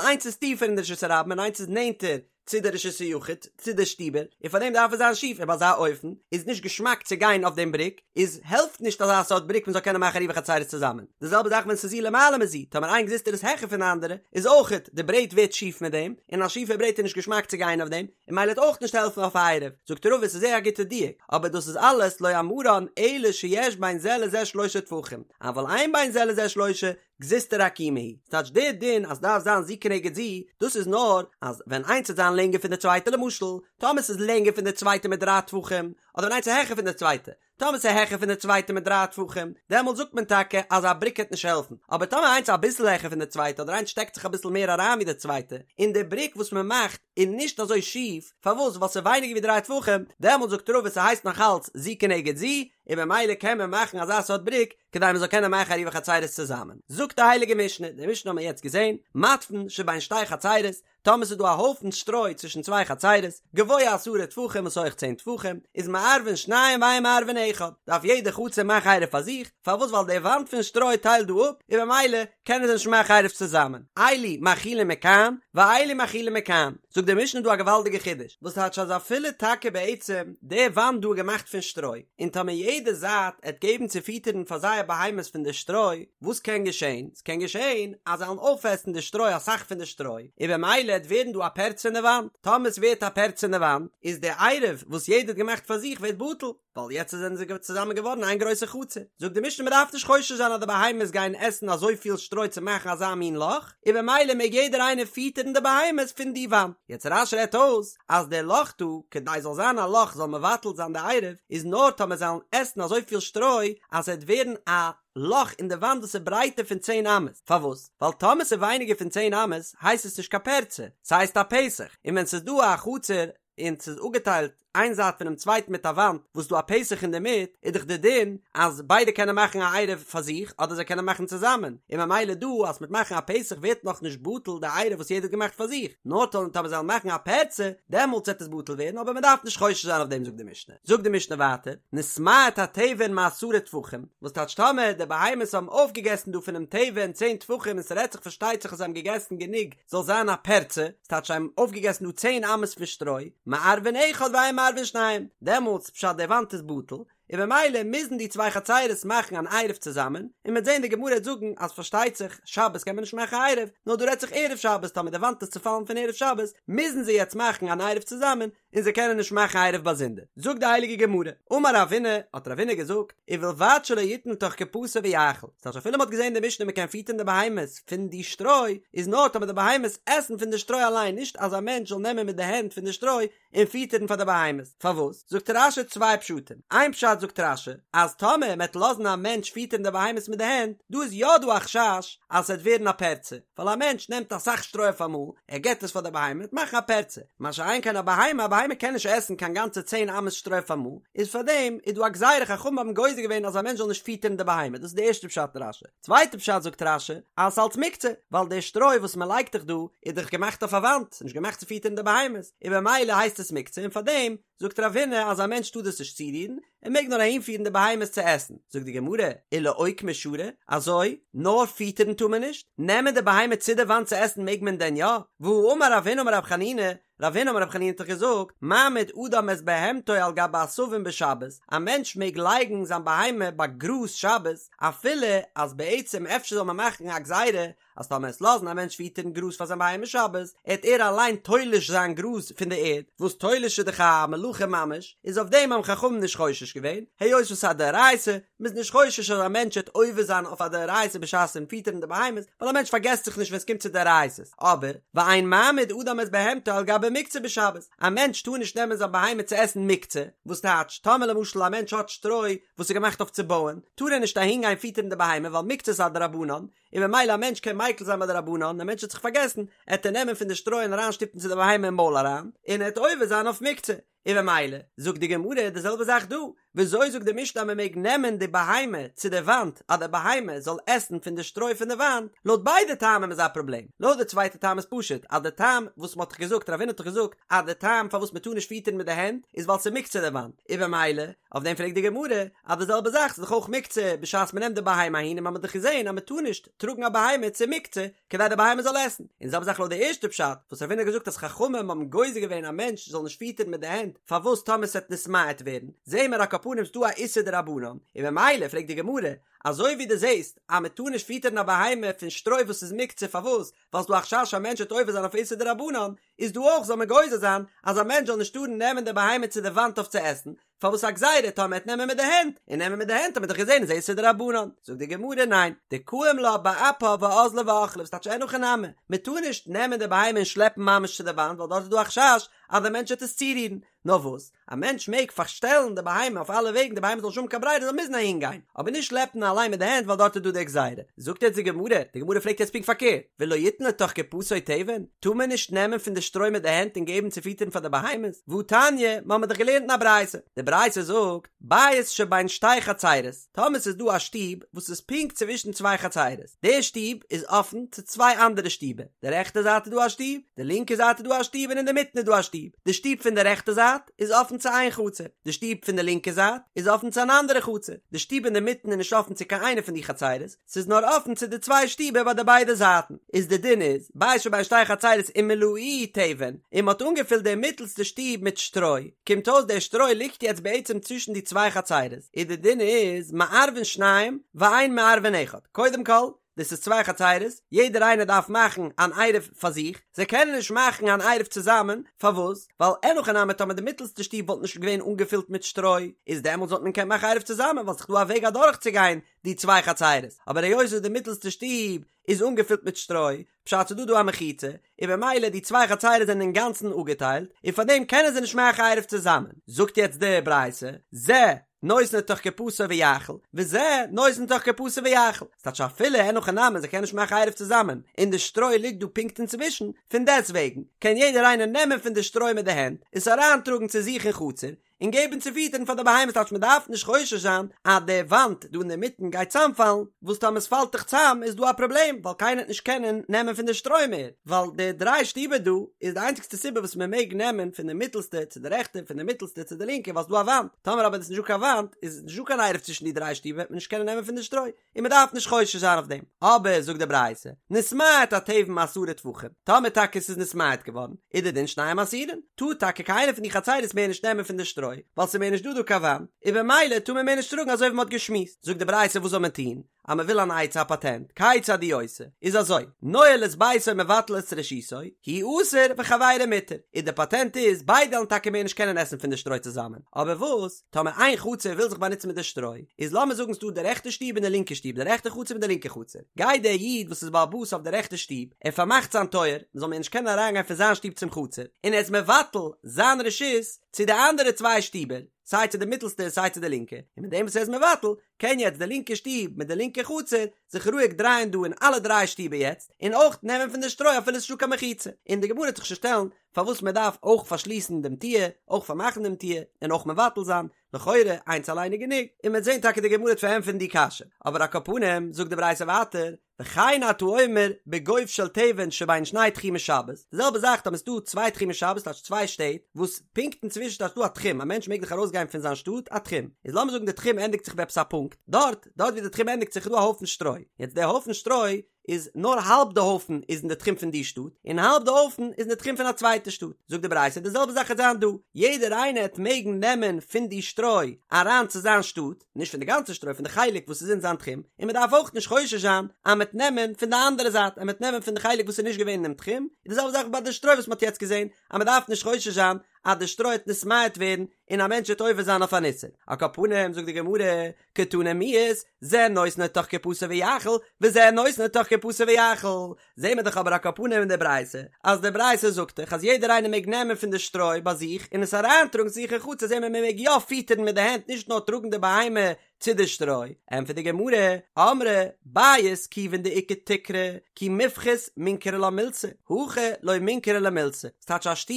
איינס איז טיפער אין די רשות הרבים און איינס איז נענטער צו די רשות היחיד, צו די שטיבער, און פאר דעם דארף עס זיין שיף, און ביי אזא אופן איז נישט געשמאק צו גיין אויף דעם בריק, איז העלפט נישט אזא סארט בריק מען זאל קענען מאכן עירובי חצירות צוזאמען. די זעלבע זאך ווען ס'איז זו למעלה מזו, טאמער איין גזוזטרא איז העכער פון די אנדערע, איז אויכעט די ברעט ווערט שיף מיט דעם, און א שיפע ברעט איז נישט געשמאק צו גיין אויף דעם, און ממילא וועט אויך נישט העלפן אויף א עירוב. זאגט רבא ס'איז זייער א גוטע דיוק, אבער דאס איז אלעס לא אמרן אלא שיש בין זה לזה שלושה טפחים, אבל אין בין זה לזה שלושה, גזוזטרא עקומה היא, ס'טייטש דער דין אז דארף זיין זו כנגד זו, דאס איז נאר אז ווען איינס וועט זיין לענגער פון די צווייטע למשל, טאמער ס'איז לענגער פון די צווייטע מיט דריי טפחים, אדער ווען איינס איז העכער פון די צווייטע, טאמער ס'איז העכער פון די צווייטע מיט דריי טפחים, דעמאלט זאגט מען טאקע אז א בריק העט נישט העלפן, אבער טאמער איינס איז אביסל העכער פון די צווייטע אדער איינס שטעקט זיך אביסל מער אריין ווי די צווייטע, און די בריק וואס מען מאכט איז נישט אזוי שיף, פארוואס? ווייל ס'איז ווייניגער ווי דריי טפחים, דעמאלט זאגט רבא ס'הייסט נאך אלץ זו כנגד זו, און במילא קען מען מאכן אזא סארט בריק כדי מען זאל קענען מאכן עירובי חצירות צוזאמען. זאגט די הייליגע משנה, די משנה האבן מיר יעצט געזען, מתבן שבין שתי חצירות, טאמער ס'איז דא א הויפן שטרוי צווישן צוויי חצירות, גבוה עשרה טפחים וואס הויך צען טפחים, איז מערבין שניים ואין מערבין אחד, דארף יעדע חצר מאכן עירוב פאר זיך, פארוואס ווייל די וואנט פון שטרוי טיילט דא אפ, און במילא קענען זיי נישט מאכן עירוב צוזאמען. אלו מאכילין מכאן, ואלו מאכילין מכאן. זאגט די משנה דא א געוואלדיגע חידוש, וואס טייטש אז אפילו טאקע בעצם די וואנט דא איז געמאכט פון שטרוי, און טאמער יעדע זייט עט געבן צו פיטערן פאר זייער בהמות פון די שטרוי, וואס קען געשען? ס'קען געשען אז זיי וועלן אויפעסן די שטרוי אסאך פון די שטרוי, און במילא עט ווערן דא א פרצה אין די וואנט, טאמער ס'ווערט א פרצה אין די וואנט, איז די עירוב וואס יעדער האט געמאכט פאר זיך ווערט בטל. ווייל יעצט זענען זיי צוזאמען געווארן איין גרויסע חצר. זאגט די משנה מ'דארף נישט חושש זיין אז די בהמות גייען עסן אזויפיל שטרוי צו מאכן אזא מין לאך, און במילא מעג יעדער איינער פיטערן די בהמות פון די וואנט. יעצט רש"י רעדט אויס אז דער לאך דא, כדי זאל זיין א לאך זאל מבטל זיין די עירוב, איז נאר טאמער זיי וועלן עסן אזויפיל שטרוי אז ס'וועט ווערן א לאך אין די וואנט וואס איז ברייטער פון צען אמות. פארוואס? ווייל טאמער ס'איז ווייניגער פון צען אמות הייסט עס נישט קיין פרצה, ס'הייסט א פתח, און ווען ס'איז דא א חצר און ס'איז אפגעטיילט איין זייט פונעם צווייטן מיט א וואנט וואס דא א פתח אינדערמיט, איז דאך די דין אז ביידע קענען מאכן א עירוב פאר זיך אדער זיי קענען מאכן צוזאמען, און ממילא דא אז מ'וועט מאכן א פתח ווערט נאכנישט בטל די עירוב וואס יעדער האט געמאכט פאר זיך, נאר טאמער זיי וועלן מאכן א פרצה דעמאלטס וועט עס בטל ווערן אבער מ'דארף נישט חושש זיין אויף דעם זאגט די משנה. זאגט די משנה ווייטער, נתמעט התבן מעשרה טפחים, וואס טייטש טאמער די בהמות האבן אויפגעגעסן דא פונעם תבן צען טפחים און ס'רעדט זיך פארשטייט זיך אז זיי האבן געגעסן גענוג זאל זיין א פרצה, ס'טייטש זיי האבן אויפגעגעסן דא צען אמות פון שטרוי, מערבין אחד ואין מערבין שניים, דעמאלטס פשט די וואנט איז בטל, און במילא מוזן די צוויי חצירות מאכן אן עירוב צוזאמען, און מ'וועט זען די גמרא וועט זאגן אז פארשטייט זיך שבת קען מען נישט מאכן עירוב, נאר דא רעדט זיך ערב שבת טאמער די וואנט איז צופאלן פון ערב שבת מוזן זיי יעצט מאכן אן עירוב צוזאמען, און זיי קענען נישט מאכן עירוב באזונדער. זאגט די הייליגע גמרא, אמר רבינא, האט רבינא געזאגט, ובלבד שלא יתן לתוך קופתו ויאכיל, ס'טייטש אפילו מ'האט געזען אין די משנה מ'קען פיטערן די בהמות פון די שטרוי, איז נאר טאמער די בהמות עסן פון די שטרוי אליין, נישט אז א מענטש זאל נעמען מיט די הענט פון די שטרוי און פיטערן פאר די בהמות. פארוואס? זאגט רש"י צוויי פשטים, איין פשט זאגט רש"י, אז טאמער מ'עט לאזן א מענטש פיטערן די בהמות מיט די הענט, דא איז יא דא א חשש אז ס'עט ווערן א פרצה, ווייל א מענטש נעמט אסאך שטרוי אויף אמאל, ער געבט עס פאר די בהמה, וועט מאכן א פרצה, מה שאין כן א בהמה, א בהמה קען נישט עסן קיין גאנצע צען אמות שטרוי אויף אמאל, איז פאר דעם איז דא א גזירה חכמים האבן גוזר געווען אז א מענטש זאל נישט פיטערן די בהמה, דאס איז די ערשטע פשט אין רש"י. צווייטע פשט זאגט רש"י, אז ס'אלץ מוקצה, ווייל די שטרוי וואס מען לייגט דאך דא, איז דאך געמאכט אויף א וואנט, ס'איז נישט געמאכט צו פיטערן די בהמות, און במילא הייסט עס מוקצה און פאר דעם זאגט רבינא אז א מענטש טאר דאס נישט צורירן, ער מעג נאר אהינפירן די בהמות צו עסן. זאגט די גמרא, ולאוקמי שרי, אזוי? נאר פיטערן טאר מען נישט? נעמען די בהמה צו די וואנט צו עסן מעג מען דען יא? והאמר רב הונא אמר רב חנינא, רב הונא אמר רב חנינא האט דאך געזאגט, מעמיד אדם את בהמתו על גבי עשבים בשבת, א מענטש מעג לייגן זיין בהמה ביי גראז שבת, אפילו אז בעצם אפשר זאל מען מאכן א גזירה אז טאמער עסט לאזן א מענטש פיטערן גראז פאר זיין בהמה שבת, עט ער אליין תולש זיין גראז פון די ערד, וואס תולש איז דאך א מלאכה ממש, איז אויף דעם האבן חכמים נישט חושש געווען, היות וואס ס'איז א דאורייתא, מ'איז נישט חושש אז א מענטש עט עובר זיין אויף א דאורייתא בשעת'ן פיטערן די בהמות, ווייל א מענטש פארגעסט זיך נישט ווען ס'קומט צו דאורייתא'ס, אבער, ואין מעמיד אדם את בהמתו על גבי מוקצה בשבת, א מענטש טאר נישט נעמען זיין בהמה צו עסן מוקצה, וואס טייטש, טאמער למשל א מענטש האט שטרוי וואס איז געמאכט אויף צו בויען, טאר ער נישט אהינגיין פיטערן די בהמה ווייל מוקצה איז א דרבנן, און ממילא א מענטש קען מיקל זיין ביי דרבנן, א מענטש האט זיך פארגעסן, עט ער נעמען פון די שטרוי און אריינשטופן צו די בהמה אין מויל אריין, און ער עט עובר זיין אויף מוקצה, און ממילא, זאגט די גמרא די זעלבע זאך דא, וויאזוי זאגט די משנה אז מען מעג נעמען די בהמה צו די וואנט אז די בהמה זאל עסן פון די שטרוי פון די וואנט, לויט ביידע טעמים איז א פראבלעם, לויט די צווייטע טעם איז פשוט אז די טעם וואס מען האט דאך געזאגט רב הונא האט דאך געזאגט אז די טעם פארוואס מען טאר נישט פיטערן מיט די הענט איז ווייל ס'איז מוקצה די וואנט, און במילא אויף דעם פרעגט די גמרא אז די זעלבע זאך ס'איז דאך אויך מוקצה בשעת מען נעמט די בהמה אהין און מען האט דאך געזען אז מען טאר נישט טראגן א בהמה צו מוקצה כדי די בהמה זאל עסן, און די זעלבע זאך לויט די ערשטע פשט וואס רב הונא האט געזאגט אז חכמים האבן גוזר געווען א מענטש זאל נישט פיטערן מיט די הענט פארוואס טאמער ס'עט נתמעט ווערן, זעהן מיר על כל פנים ס'דא א איסור דרבנן, און במילא פרעגט די גמרא, אזוי ווי דו זעהסט אז מען טאר נישט פיטערן א בהמה פון שטרוי וואס איז מוקצה פארוואס ווייל ס'דא א חשש א מענטש וועט עובר זיין אויף איסור דרבנן, איז דא אויך זאל מען גוזר זיין אז א מענטש זאל נישט טארן נעמען די בהמה צו די וואנט אויף צו עסן, פארוואס א גזירה טאמער מ'עט נעמען מיט די הענט, און נעמען מיט די הענט האט מען דאך געזען איז איסור דרבנן, זאגט די גמרא ניין, דקאים לה באפה ואזלה ואכלה וואס טייטש אין הכי נמי, מען טאר נישט נעמען די בהמה און שלעפן ממש צו די וואנט ווייל דארט איז דא א חשש אז די מענטש וועט עס צורירן, נאר וואס, א מענטש מעג פארשטעלן די בהמה אויף אלע וועגן די בהמה זאל נישט האבן קיין ברירה זאל מוזן אהין גיין, אבער נישט שלעפן אליין מיט די הענט ווייל דארט איז דא די גזירה. זאגט יעצט די גמרא, די גמרא פרעגט יעצט פונקט פארקערט, ולא יתן לתוך קופתו תבן, טאר מען נישט נעמען פון די שטרוי מיט די הענט און געבן צו פיטערן פאר די בהמות? והתניא, מ'האמיר דאך געלערנט אין א ברייתא, די ברייתא זאגט, בית שבין שתי חצרות, טאמער ס'איז דא א שטוב וואס איז פונקט צווישן צוויי חצרות, די שטוב איז אפן צו צוויי אנדערע שטיבער, די רעכטע זייט איז דא א שטוב, די לינקע זייט איז דא א שטוב און אינדערמיטן איז דא א שטוב, די שטוב פון די רעכטע זייט איז אפן צו איין חצר, די שטוב פון די לינקע זייט איז אפן צו אן אנדערע חצר, די שטוב אינדערמיטן איז נישט אפן צו קיין איינע פון די חצרות, ס'איז נאר אפן צו די צוויי שטיבער ביי די ביידע זייטן, איז די דין איז, בית שבין שתי חצרות ומלאוהו תבן, און מ'האט אנגעפילט די מיטלסטע שטוב מיט שטרוי, קומט אויס דער שטרוי ליגט יעצט בעצם צווישן די צוויי חצרות, איז די דין איז, מערבין שניים ואין מערבין אחד, קודם כל, דאס איז צוויי חצרות, יעדער איינער דארף מאכן אן עירוב פאר זיך, זיי קענען נישט מאכן אן עירוב צוזאמען, פארוואס? ווייל אין הכי נמי טאמער די מיטלסטע שטוב וואלט נישט געווען אנגעפילט מיט שטרוי, איז דעמאלטס וואלט מען געקענט מאכן עירוב צוזאמען ווייל ס'איז דא א וועג אדורכצוגיין די צוויי חצרות, אבער היות וואס די מיטלסטע שטוב איז אנגעפילט מיט שטרוי, פשט ס'איז דא דא א מחיצה, און במילא די צוויי חצרות זענען אינגאנצן אפגעטיילט, און פארדעם קענען זיי נישט מאכן עירוב צוזאמען. זאגט יעצט די ברייתא, זה נותן לתוך קופתו ויאכיל, וזה נותן לתוך קופתו ויאכיל. ס'טייטש אפילו אין הכי נמי זיי קענען נישט מאכן עירוב צוזאמען, און די שטרוי ליגט דא פונקט אינצווישן, פון דעסטוועגן קען יעדער איינער נעמען פון די שטרוי מיט די הענט, עס אריינטראגן צו זיך אין חצר, און געבן צו פיטערן פאר די בהמות טייטש מען דארף נישט חושש זיין אז די וואנט דא אינדערמיטן גייט צאמפאלן, וואס טאמער עס פאלט דאך צאם איז דא א פראבלעם ווייל קיינער וועט נישט קענען נעמען פון די שטרוי מער, ווייל די דריי שטיבער דא איז די איינציגסטע סיבה וואס מען מעג נעמען פון די מיטעלסטע צו די רעכטע און פון די מיטעלסטע צו די לינקע ווייל ס'דא א וואנט, טאמער אבער איז נישטא קיין וואנט איז נישטא קיין עירוב צווישן די דריי שטיבער וועט מען נישט קענען נעמען פון די שטרוי. און מען דארף נישט חושש זיין אויף דעם, אבער זאגט די ברייתא, נתמעט התבן מעשרה טפחים, טאמער טאקע ס'איז נתמעט געווארן, איז די דין שניהם אסורין, טאר טאקע קיינער פון די חצירות מער נישט נעמען פון די שטרוי, ווייל ס'איז מער נישט דא דא קיין וואנט, און במילא טאר מען מער נישט טראגן אזוי ווי מען האט געשמועסט, זאגט די ברייתא וואס זאל מען טון, אז מען וויל אן עצה א פאטענט, כיצד הוא עושה, איז אזוי, נועל את ביתו ומבטל את רשותו, הוא אסור וחבירו מותר, און די פאטענט איז, ביידע וועלן טאקע מער נישט קענען עסן פון די שטרוי צוזאמען, אבער וואס? טאמער איין חצר וויל זיך באנוצן מיט די שטרוי, איז לאמיר זאגן ס'דא די רעכטע שטוב און די לינקע שטוב, די רעכטע חצר מיט די לינקע חצר, גייט דער איד וואס איז בעל הבית אויף די רעכטע שטוב, ער פארמאכט זיין טויער, מ'זאל מער נישט קענען אריינגיין פון זיין שטוב צום חצר, און ער איז מבטל זיין רשות צו די אנדערע צוויי שטיבער, סיי צו די מיטלסטע און סיי צו די לינקע, און מיט דעם וואס ער איז מבטל, קען יעצט די לינקע שטוב מיט די לינקע חצר זיך רואיג דרייען דא אין אלע דריי שטיבער יעצט, און אויך נעמען פון די שטרוי אפילו ס'איז נישטא קיין מחיצה, און די גמרא וועט זיך שוין שטעלן פארוואס מען דארף אויך פארשליסן דעם טיר, אויך פארמאכן דעם טיר, און אויך מבטל זיין, לכאורה איינס אליין איז גענוג, און מ'וועט זען טאקע די גמרא וועט פארענטפערן די קשיא, אבער על כל פנים זאגט די ברייתא ווייטער, וכן אתה אומר בגוב של תבן שבין שני תחומי שבת, די זעלבע זאך טאמער ס'דא צוויי תחומי שבת טייטש צוויי שטעט, וואס פונקט אינצווישן טייטש דא א תחום, א מענטש מעג דאך ארויסגיין פון זיין שטאט א תחום, איז לאמיר זאגן די תחום ענדיגט זיך ביי עפעס א פונקט, דארט, דארט ווי די תחום ענדיגט זיך איז דא א הויפן שטרוי, יעצט די הויפן שטרוי איז נאר האלב די הויפן איז אין די תחום פון די שטאט, און האלב די הויפן איז אין די תחום פון א צווייטע שטאט. זאגט די ברייתא די זעלבע זאך וועט זיין דא, יעדער איינער העט מעגן נעמען פון די שטרוי אריין צו זיין שטאט, נישט פון די גאנצע שטרוי, פון די חלק וואס איז אין זיין תחום, און מען דארף אויך נישט חושש זיין אז מען וועט נעמען פון די אנדערע זייט, אז מען וועט נעמען פון די חלק וואס איז נישט געווען אינעם תחום, און די זעלבע זאך ביי די שטרוי וואס מען האט יעצט געזען, אז מען דארף נישט חושש זיין אז די שטרוי העט נתמעט ווערן און א מענטש וועט עובר זיין אויף אן איסור. על כל פנים זאגט די גמרא, קתני מיהת, זה נותן לתוך קופתו ויאכיל, וזה נותן לתוך קופתו ויאכיל. זעהן מיר דאך אבער על כל פנים אין די ברייתא, אז די ברייתא זאגט דאך אז יעדער איינער מעג נעמען פון די שטרוי ביי זיך און עס אריינטראגן צו זיך אין חצר זעהן מיר מען מעג יא פיטערן מיט די הענט נישט נאר טראגן די בהמה צו די שטרוי. ענטפערט די גמרא, אמרי, בית כיוון דאיכא תקרה, כי מיפחית מינכרא לה מילתא, הכא לא מינכרא לה מילתא. ס'טייטש א שטוב,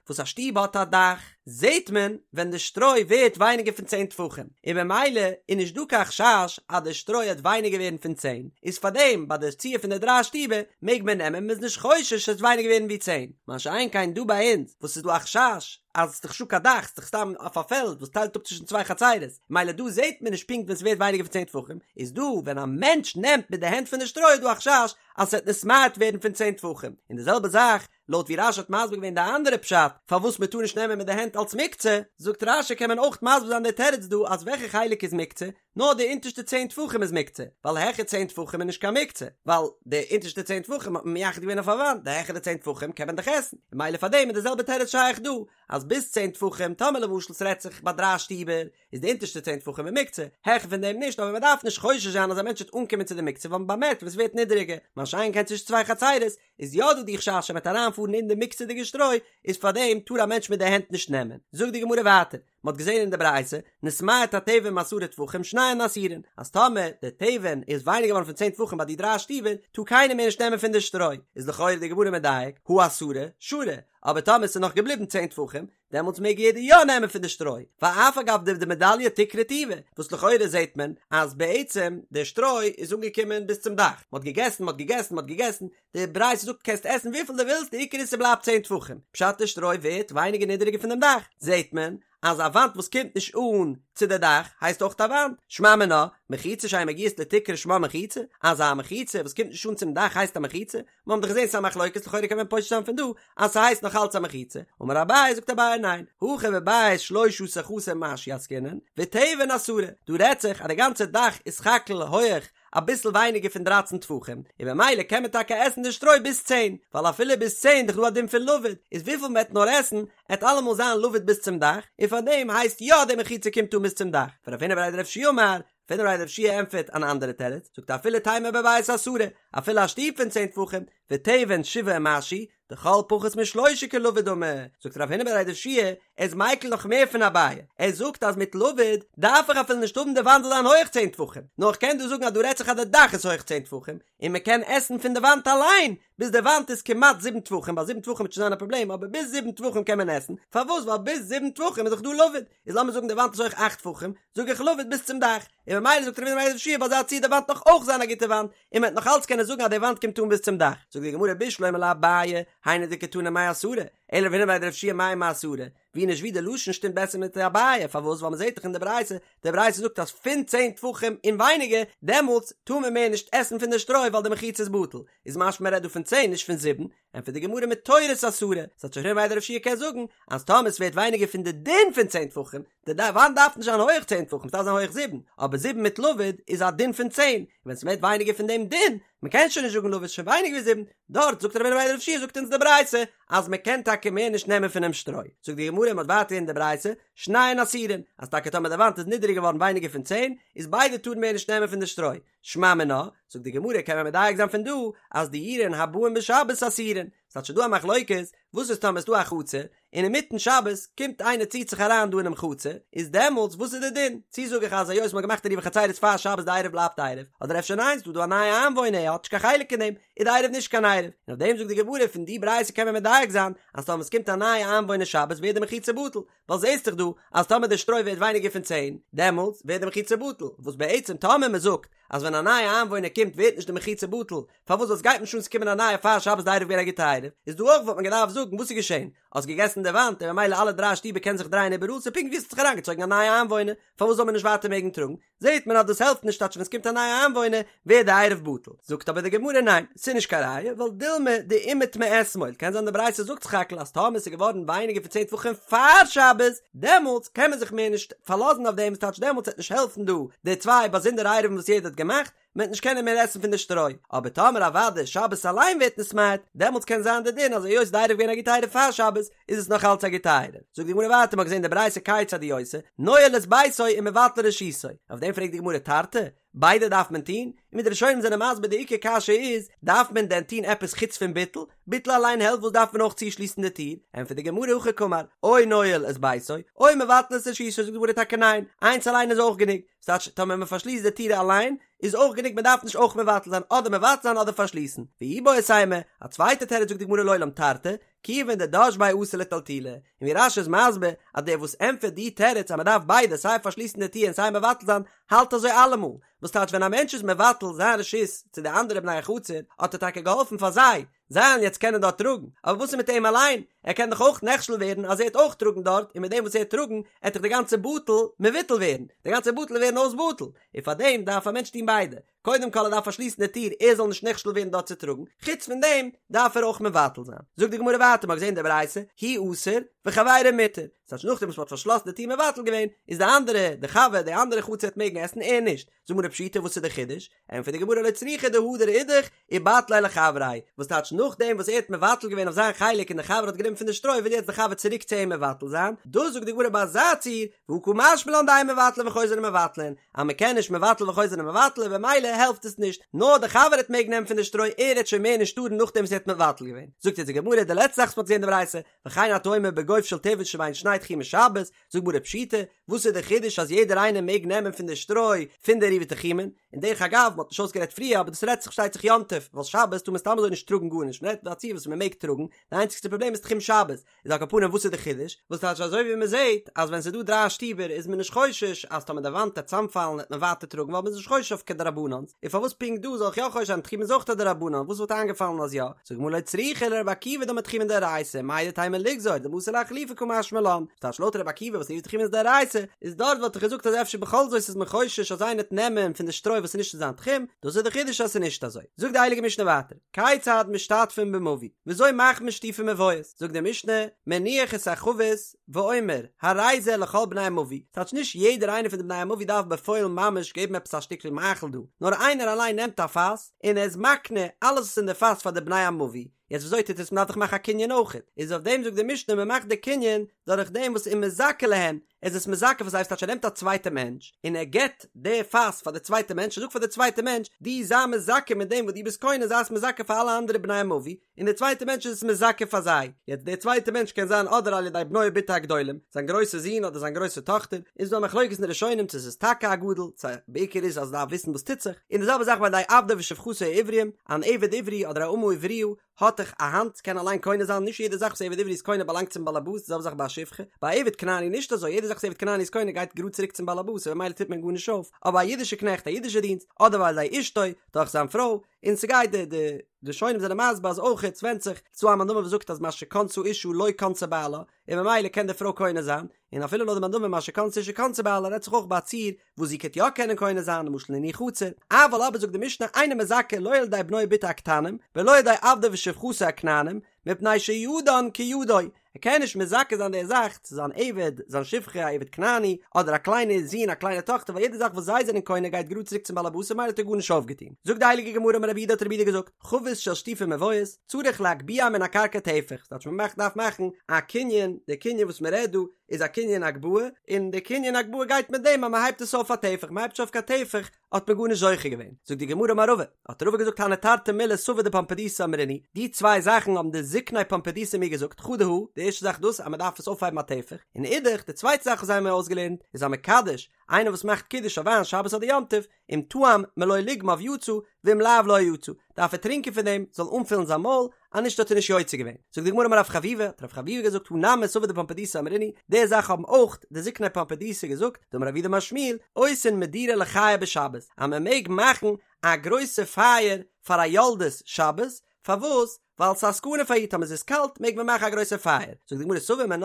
וואס א שטוב האט א דאך. זעהט מען ווען די שטרוי ווערט ווייניגער פון צען טפחים, און במילא איז נישט דא קיין חשש אז די שטרוי העט ווייניגער ווערן פון צען, איז פארדעם ביי די ציור פון די דריי שטיבער מעג מען נעמען מ'איז נישט חושש ס'וועט ווייניגער ווערן ווי צען, מה שאין כן דא ביי אונז וואס ס'איז דא א חשש אז ס'איז דאך נישטא קיין דאך ס'איז דאך סתם אויף א פעלד וואס טיילט אפ צווישן צוויי חצרות, מילא דא זעהט מען נישט פונקט ווען ס'ווערט ווייניגער פון צען טפחים, איז דא ווען א מענטש נעמט מיט די הענט פון די שטרוי איז דא א חשש אז ס'וועט נתמעט ווערן פון צען טפחים, און די זעלבע זאך לויט ווי רש"י האט מסביר געווען די אנדערע פשט פארוואס מען טאר נישט נעמען מיט די הענט אלס מוקצה, זאגט רש"י קען מען אויך מסביר זיין די תירוץ דא אז וועלכע חלק איז מוקצה, נאר די אונטערשטע צען טפחים איז מוקצה, ווייל העכער צען טפחים איז נישט קיין מוקצה, ווייל די אונטערשטע צען טפחים האט מען מייחד געווען אויף א וואנט, די העכערע צען טפחים קען מען דאך עסן, און ממילא פאר דעם איז די זעלבע תירוץ שייך דא, אז ביז צען טפחים, טאמער למשל ס'רעדט זיך ביי דריי שטיבער, איז די אונטערשטע צען טפחים איז מוקצה, העכער פון דעם נישט, אבער מען דארף נישט חושש זיין אז א מענטש וועט אנקומען צו די מוקצה ווייל מען באמערקט ווען ס'ווערט נידעריגער, מה שאין כן צווישן צוויי חצירות, איז יא דא די חשש אז מ'וועט אריינפארן אין די מוקצה'דיגע שטרוי, איז פארדעם טאר א מענטש מיט די הענט נישט נעמען. זאגט די גמרא ווייטער, מ'האט געזען אין די ברייתא, נתמעט התבן מעשרה טפחים שניהם אסורין, אז טאמער די תבן איז ווייניגער געווארן פון צען טפחים ביי די דריי שטיבער, טאר קיינער מער נישט נעמען פון די שטרוי, איז לכאורה די גמרא מדייק, הא עשרה, שרי, אבער טאמער ס'איז נאך געבליבן צען טפחים, דעמאלטס מעג יעדער יא נעמען פון די שטרוי, ואף על גב דמדליא תקרא טובא, וואס לכאורה זעט מען אז בעצם די שטרוי איז אנגעקומען ביז צום דאך, מ'האט געגעסן מ'האט געגעסן מ'האט געגעסן, די ברייתא זאגט קענסט עסן וויפיל דו ווילסט די עיקר איז ס'בלייבט צען טפחים, פשט די שטרוי ווערט ווייניגער נידעריגער פון דעם דאך, זעט מען אז א וואנט וואס קומט נישט אן צו די דאך הייסט אויך א וואנט, שמע מינה, מחיצה שאין מגיעות לתקרה שמה מחיצה, אז א מחיצה וואס קומט נישט אן צום דאך הייסט א מחיצה, מיר האבן דאך געזען ס'איז א מחלוקת לכאורה קען מען פושט זיין פון דא אז ס'הייסט נאך אלץ א מחיצה, אמר אביי זאגט אביי ניין, הכא בבית שלשה עשר חסר ומשהו עסקינן, ותבן עשרה, דא רעדט זיך אז די גאנצע דאך איז סך הכל הויעך אביסל ווייניגער פון דרייצן טפחים, און במילא קען מען טאקע עסן די שטרוי ביז צען, ווייל אפילו ביז צען דאך דא א דין פון לבוד, איז וויפיל מ'עט נאר עסן, עט אלעמאל זיין לבוד ביז צום דאך, און פארדעם הייסט יא די מחיצה קומט אן ביז צום דאך, ורב הונא בריה דרב יהושע אמר, רב הונא בריה דרב יהושע ענטפערט אן אנדערע תירוץ, זאגט אפילו תימא בבית עשרה, אפילו א שטוב פון צען טפחים, ותבן שבעה ומשהו, דכל פחות משלושה כלבוד דמי, זאגט רב הונא בריה דרב יהושע, ער איז מיקל נאך מער פון אביי, ער זאגט אז מיט לבוד דארף איך אפילו נישט האבן די וואנט זאל זיין הויעך צען טפחים, נאר איך קען דא זאגן אז דא רעדט זיך אז די דאך איז הויעך צען טפחים, און מען קען עסן פון די וואנט אליין, ביז די וואנט איז כמעט זיבן טפחים, ביי זיבן טפחים וועט שוין זיין א פראבלעם, אבער ביז זיבן טפחים קען מען עסן, פארוואס? ווייל ביז זיבן טפחים איז דאך דא לבוד, איז לאמיר זאגן די וואנט איז הויך אכט טפחים, זאג איך לבוד ביז צום דאך, און ממילא זאגט רב הונא בריה דרב יהושע ביי אזא ציור די וואנט נאך אויך זיין א גוטע וואנט, און מען וועט נאך אלץ קענען זאגן אז די וואנט קומט אן ביז צום דאך, זאגט די גמרא בשלמא לאביי, היינו דקתני מעשרה, אלא לרב הונא בריה דרב יהושע מאי מעשרה, ווי נישט ווי די לשון שטימט בעסער מיט אביי, פארוואס? ווייל מען זעט דאך אין די ברייתא, די ברייתא זאגט אז פון צען טפחים און ווייניגער, דעמאלטס טאר מען מער נישט עסן פון די שטרוי ווייל די מחיצה איז בטל, איז משמע מען רעדט דא פון צען נישט פון זיבן, ענטפערט די גמרא מתורת עשרה, ס'טייטש רב הונא בריה דרב יהושע קען זאגן אז טאמער ס'ווערט ווייניגער פון די דין פון צען טפחים, די וואנט דארף נישט זיין הויעך צען טפחים ס'דארף זיין הויעך זיבן, אבער זיבן מיט לבוד איז א דין פון צען, און ווען ס'ווערט ווייניגער פון דעם דין, מ'קען שוין נישט זאגן לבוד איז שוין ווייניגער ווי זיבן, דארט זאגט רב הונא בריה דרב יהושע זאגט אונז די ברייתא אז מ'קען טאקע מער נישט נעמען פונעם שטרוי, זאגט די גמרא מ'האט ווייטער אין די ברייתא שניהן אסורין, אז טאקע טאמער די וואנט איז נידעריג געווארן ווייניגער פון צען, איז ביידע טארן מער נישט נעמען פון די שטרוי, שמע מינה, זאגט די גמרא קען מען מדייק זיין פון דא אז דיורין הבאין בשבת אסורין, ס'טייטש ס'דא א מחלוקת, וואס איז טאמער ס'דא א חצר, און אינמיטן שבת קומט איינער ציט זיך אריין דא אינעם חצר, איז דעמאלטס וואס איז די דין? צו זאג איך אז היות מ'האט געמאכט עירובי חצירות פאר שבת די עירוב בלייבט עירוב, אדער אפשר ניין ס'דא דא א נייע איינוואוינער ער האט נישט קיין חלק אין דעם, איז די עירוב נישט קיין עירוב, און אויף דעם זאגט די גמרא פון די ברייתא קען מען מדייק זיין אז טאמער ס'קומט א נייע איינוואוינער שבת ווערט די מחיצה בטל, ווייל זעהסט דאך דא אז טאמער די שטרוי ווערט ווייניגער פון צען, דעמאלטס ווערט די מחיצה בטל, וואס בעצם טאמער מען זאגט אז ווען א נייע איינוואוינער קומט ווערט נישט די מחיצה בטל, פארוואס ווייל סגייט נישט אן ס'קומען א נייע פאר שבת די עירוב געווען א גוטע עירוב, איז דא אויך וואלט מען געדארפט זאגן וואס איז געשען, האסט געגעסן די וואנט און ממילא אלע דריי שטיבער קענען זיך דרייען איבעראל ס'איז פונקט ווי עס האט זיך אריינגעצויגן א נייע איינוואוינער, פארוואס זאל מען נישט ווייטער מעגן טראגן? זעהט מען אז דאס העלפט נישט טייטש ווען ס'קומט א נייע איינוואוינער ווערט די עירוב בטל, זאגט אבער די גמרא ניין ס'איז נישט קיין ראיה ווייל דילמא דאימעט מאתמול, קען זיין די ברייתא זאגט סך הכל אז טאמער ס'איז געווארן ווייניגער פון צען טפחים פאר שבת דעמאלטס קען מען זיך מער נישט פארלאזן אויף דעם ס'טייטש דעמאלטס וועט נישט העלפן דא די צוויי באזונדערע עירובין וואס יעדער האט געמאכט, מען וועט נישט קענען מער עסן פון די שטרוי, אבער טאמער אוודאי שבת אליין ווערט נתמעט, דעמאלטס קען זיין די דין אז היות די עירוב געווען א גוטע עירוב פאר שבת, איז עס נאך אלץ א גוטע עירוב. זאגט די גמרא ווייטער, מ'האט געזען די ברייתא כיצד הוא עושה, נועל את ביתו ומבטל רשותו, אויף דעם פרעגט די גמרא תרתי, ביידע דארף מען טון? און ווי די ראשונים זענען מסביר די עיקר קשיא איז, דארף מען דען טון עפעס חוץ פון ביטול? ביטול אליין העלפט וואס דארף מען אויך צושליסן די טיר? ענטפערט די גמרא הכי קאמר, או נועל את ביתו, או מבטל את רשותו, זאגט די גמרא טאקע ניין, איינס אליין איז אויך גענוג, ס'טייטש טאמער מען פארשליסט די טיר אליין איז אויך גענוג מען דארף נישט אויך מבטל זיין אדער מבטל זיין אדער פארשליסן, ואיבעית אימא, א צווייטע תירוץ זאגט די גמרא לעולם תרתי, כיוון דדש ביה אתי לטלטולי, און ווי רש"י איז מסביר אז דער וואס ענטפערט די תירוץ אז מען דארף ביידע סיי פארשליסן די טיר און סיי מבטל זיין האלט אזוי אלעמאל, וואס טייטש ווען א מענטש איז מבטל זיין רשות צו די אנדערע בני החצר האט ער טאקע געהאלפן פאר זיי, זיי וועלן יעצט קענען דארט טראגן, אבער וואס איז מיט אים אליין? ער קען דאך אויך נכשל ווערן אז ער העט אויך טראגן דארט, און מיט דעם וואס ער העט טראגן, העט דאך די גאנצע בטל מבוטל ווערן, די גאנצע בטל ווערן אויס בטל, און פאר דעם דארף א מענטש טון ביידע, קודם כל ער דארף פארשליסן די טיר ער זאל נישט נכשל ווערן דארט צו טראגן, חוץ פון דעם דארף ער אויך מבטל זיין. זאגט די גמרא ווייטער, מ'האט געזען די ברייתא, הוא אסור וחבירו מותר, ס'טייטש נאכדעם וואס מ'האט פארשלאסן די טיר מבטל געווען, איז די אנדערע, די חבר, די אנדערע חצר העט מעגן עסן, ער נישט, זאגט די גמרא פשיטא וואס איז די חידוש? ענטפערט די גמרא לא צריכא דהדר אידך ובטליה לחבריה, וואס טייטש נאכדעם וואס ער האט מבטל געווען אויף זיין חלק און די חבר האט גענומען פון די שטרוי וויל יעצט די חבר צוריק צו אים מבטל זיין, דאס זאגט די גמרא ביי אזא ציור, והא קא משמע לן דאין מבטלין וחוזרין ומבטלין, אז מען קען נישט מבטל וחוזר ומבטל און במילא העלפט עס נישט, נאר די חבר העט מעגן נעמען פון די שטרוי ער העט שוין מער נישט טארן נאכדעם וואס ער האט מבטל געווען, זאגט יעצט די גמרא די לעצטע זאך וואס מען האט געזען אין די ברייתא, וכן אתה אומר בגוף של תבן שבין שני תחומי שבת, זאגט גמרא פשיטא, וואס איז די חידוש אז יעדער איינער מעג נעמען פון די שטרוי פון די עירובי תחומין? און דרך אגב, מ'האט נישט אויסגערעדט פריער אבער דאס רעדט זיך פארשטייט זיך יום טוב, ווייל שבת טאר מען סתם אזוי נישט טראגן גארנישט, מ'רעדט ביי א ציור וואס מ'מעג טראגן, די איינציגסטע פראבלעם איז תחום שבת, איז על כל פנים וואס איז די חידוש? וואס טייטש אזוי ווי מ'זעט אז ווען ס'איז דא דריי שטיבער איז מען נישט חושש אז טאמער די וואנט וועט צאמפאלן וועט מען ווייטער טראגן ווייל מ'איז נישט חושש אויף כדרבנן'ס, און פארוואס פונקט דא זאל איך יא חושש זיין תחומין איז אויך א דרבנן וואס וואלט איינגעפאלן אז יא? זאגט גמרא לא צריכא לרבי עקיבא דאמר תחומין דאורייתא מהו דתימא ליגזור דמתא לאחלופי קא משמע לן ס'טייטש לויט רבי עקיבא וואס עירובי תחומין איז דאורייתא איז דארט וואלט איך געזאגט אז אפשר בכל זאת איז מען חושש אז איינער וועט נעמען פון די שטרוי וואס איז נישט אין זיין תחום דאס איז די חידוש אז ס'איז נישט אזוי זאגט די הייליגע משנה ווייטער כיצד משתתפין במבוי וויאזוי מאכט מען שיתופי מבואות זאגט די משנה מניח את החבית ואומר הרי זה לכל בני המבוי, ס'טייטש נישט יעדער איינער פון די בני המבוי דארף בפועל ממש געבן עפעס א שטיקל מאכל דא, נאר איינער אליין נעמט א פאס און ער איז מקנה אלעס וואס אין די פאס פאר די בני המבוי, יעצט וויאזוי טוט עס מ'דארף דאך מאכן א קנין אויכעט, איז אויף דעם זאגט די משנה מ'מאכט די קנין דורך דעם וואס ומזכה להן, ער איז עס מזכה פאר זיי ס'טייטש ער נעמט א צווייטע מענטש און ער געבט די פאס פאר די צווייטע מענטש ער זאגט פאר די צווייטע מענטש דו זיי מזכה מיט דעם וואס דו ביסט קונה זיי עס מזכה פאר אלע אנדערע בני המבוי, און דער צווייטער מענטש איז עס מזכה פאר זיי, יעצט דער צווייטער מענטש קען זיין אדער על ידי בנו ובתו הגדולים, זיין גרויסע זון אדער זיין גרויסע טאכטער, איז דא א מחלוקת אין די ראשונים צו עס איז טאקע א גדול, צו בעיקר איז אז ער דארף וויסן וואס טוט זיך, און די זעלבע זאך ועל ידי עבדו ושפחתו העברים, אן עבד עברי אדער א אמה עבריה האט דאך א האנט, קען אליין קונה זיין, נישט יעדע זאך וואס עבד עברי איז קונה באלאנגט צום באלעבאס, די זעלבע זאך ביי א שפחה, ביי א עבד כנעני נישט אזוי, יעדע זאך וואס עבד כנעני איז קונה גייט גראד צוריק צום באלעבאס און במילא טוט מען גארנישט אויף, אבער א אידישע קנעכט, א אידישע דינסט, אדער ועל ידי אשתו, דורך זיין פרוי, און ס'גייט די די ראשונים זענען מסביר אז אויך ס'ווענדט זיך ס'דא א מאן דאמר וואס זאגט אז מה שקנתה אשה לא קנתה בעלה און ממילא קען די פרוי קונה זיין און אפילו לויט די מאן דאמר מה שקנתה אשה קנתה בעלה רעדט זיך אויך ביי א ציור וואס זי קען יא קענען קונה זיין למשל אין איר חצר אבל אבער זאגט די משנה אינו מזכה לא על ידי בנו ובתו הקטנים ולא על ידי עבדו ושפחתו הכנענים מפני שידן כידו ער קען נישט מזכה זיין די זאך צו זיין עבד, זיין שפחה, א עבד כנעני, אדער א קליינע זון, א קליינע טאכטער, ווייל יעדע זאך וואס זיי זענען קונה גייט גראד צוריק צום בעל הבית און ממילא האט ער גארנישט אויפגעטון. זאגט די הייליגע גמרא אמר רב יהודה האט רב יהודה געזאגט, חבית של שיתופי מבואות, צריך להגביה מן הקרקע טפח, ס'טייטש מען מאכט דארף מאכן א קנין, די קנין וואס מען רעדט דא איז א קנין הגבהה, און די קנין הגבהה גייט מיט דעם אז מען הייבט עס אויף א טפח, מען הייבט נישט אויף קיין טפח, האט מען גארנישט זוכה געווען. זאגט די גמרא אמר רבא, האט רבא געזאגט הני תרתי מילי סבי דפומבדיתא אמרינהו, די צוויי זאכן האבן די זקני פומבדיתא מיר געזאגט, חדא הא, די ערשטע זאך דאס אז מען דארף עס אויפהייבן א טפח, און אידך, די צווייטע זאך וואס זיי האבן מיר אויסגעלערנט, איז המקדש, איינער וואס מאכט קידוש אויף וויין שבת אדער יום טוב, אם טעם מלא לוגמיו יצא, ואם לאו לא יצא, דארף ער טרינקען פון דעם, זאל אנפילן זיין מויל, אז נישט האט ער נישט יוצא געווען. זאגט די גמרא אמר רב חביבא, האט רב חביבא געזאגט הא נמי סבי דפומבדיתא אמרינהו, די זאך האבן אויך די זקני פומבדיתא געזאגט, דאמר רב יהודה אמר שמואל, עושין מדורה לחיה בשבת, אז מען מעג מאכן א גרויסע פייער פאר א יולדת שבת, פארוואס? ווייל ס'איז א סכנה פאר איר טאמער ס'איז קאלט מעג מען מאכן א גרויסע פייער. זאגט די גמרא סבור מינה,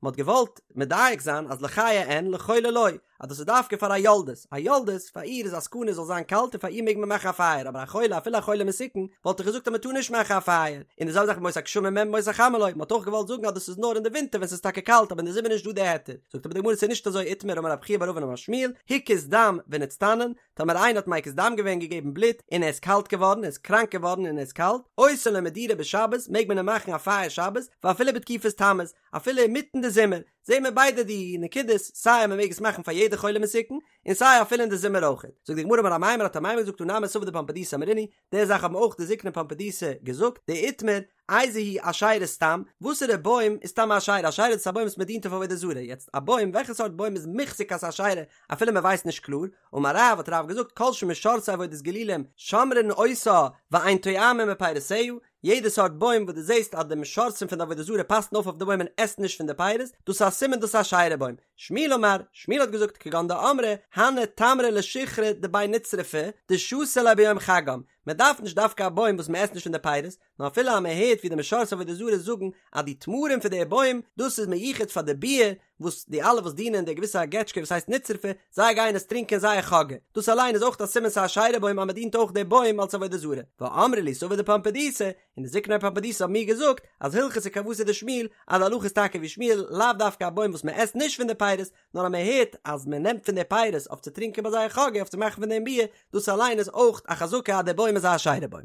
מען האט געוואלט מדייק זיין אז לחיה אין לחולה לא, אז דאס איז דווקא פאר א יולדת, א יולדת פאר איר איז א סכנה זאל זיין קאלט און פאר איר מעג מען מאכן א פייער, אבער א חולה אפילו א חולה מסוכן וואלט איך געזאגט אז מען טאר נישט מאכן א פייער, און די זעלבע זאך בימות הגשמים אין בימות החמה לא, מען האט אויך געוואלט זאגן אז דאס איז נאר אין די ווינטער ווען ס'איז טאקע קאלט אבער אין די זומער איז נישט דא די היתר, זאגט אבער די גמרא ס'איז נישט אזוי איתמר אמר רב חייא בר אבין אמר שמואל, הקיז דם ונצטנן, טאמער איינער האט מקיז דם געווען געגעבן בלוט און ער איז קאלט געווארן ער איז קראנק געווארן און ער איז קאלט, עושין לו מדורה בשבת מעג מען אים מאכן א פייער שבת ואפילו בתקופת תמוז, אפילו אינמיטן די זומער. זומער. זעהן מיר ביידע די נקודות, סיי אז מען מעג עס מאכן פאר יעדע חולה מסוכן, און סיי אפילו אין די זומער אויכעט. זאגט די גמרא אמר אמימר האט אמימר געזאגט תא נמי סבי דפומבדיתא אמרינהו, די זאך האבן אויך די זקני פומבדיתא געזאגט, דאיתמר, איזו היא אשירה סתם, וואסערע בוים איז סתם א אשירה? אשירה איז א בוים וואס מען דינט אויף עבודה זרה, יעצט א בוים, וועלכע סארט בוים איז מוחזק אז ס'איז אשירה אפילו מען ווייסט נישט קלאר? אמר רב, האט רב געזאגט כל שמשרתי עבודת גילולים שומרין אותה ואין טועמין מפירותיה, יעדע סארט בוים וואס דו זעסט אז די משרתים פון די עבודה זרה פאסן אויף אויף די בוים און עסן נישט פון די פירות, דאס איז א סימן דאס איז א אשירה בוים. שמואל אמר, שמואל האט געזאגט כגון דאמרי הני תמרי לשיכרא דבי נצרפי דשתו ליה ביום חגם, מען דארף נישט דווקא א בוים וואס מען עסט נישט פון די פירות, נאר אפילו אז מען הערט ווי די משרתי עבודה זרה זאגן אז די תמרים פון די בוים דאס איז מיוחד פאר די ביר וואס די אלע וואס דינען די געוויסע געטשקע וואס הייסט נצרפי זיי גייען עס טרינקען זייער חאגע דאס אליין איז אויך א סימן ס'איז א אשירה בוים אז מען דינט אויך די בוים אלס עבודה זרה ואמרי לי סבי דפומבדיתא און די זקני פומבדיתא האבן מיר געזאגט אז הלכתא כוותיה דשמואל אז די הלכה איז טאקע ווי שמואל לאו דווקא א בוים וואס מען עסט נישט פון די פירות נאר אז מען הערט אז מען נעמט פון די פירות אויף צו טרינקען ביי זייער חאגע אויף צו מאכן פון דעם ביר דאס אליין איז אויך א חזקה אז די בוים איז א אשירה בוים.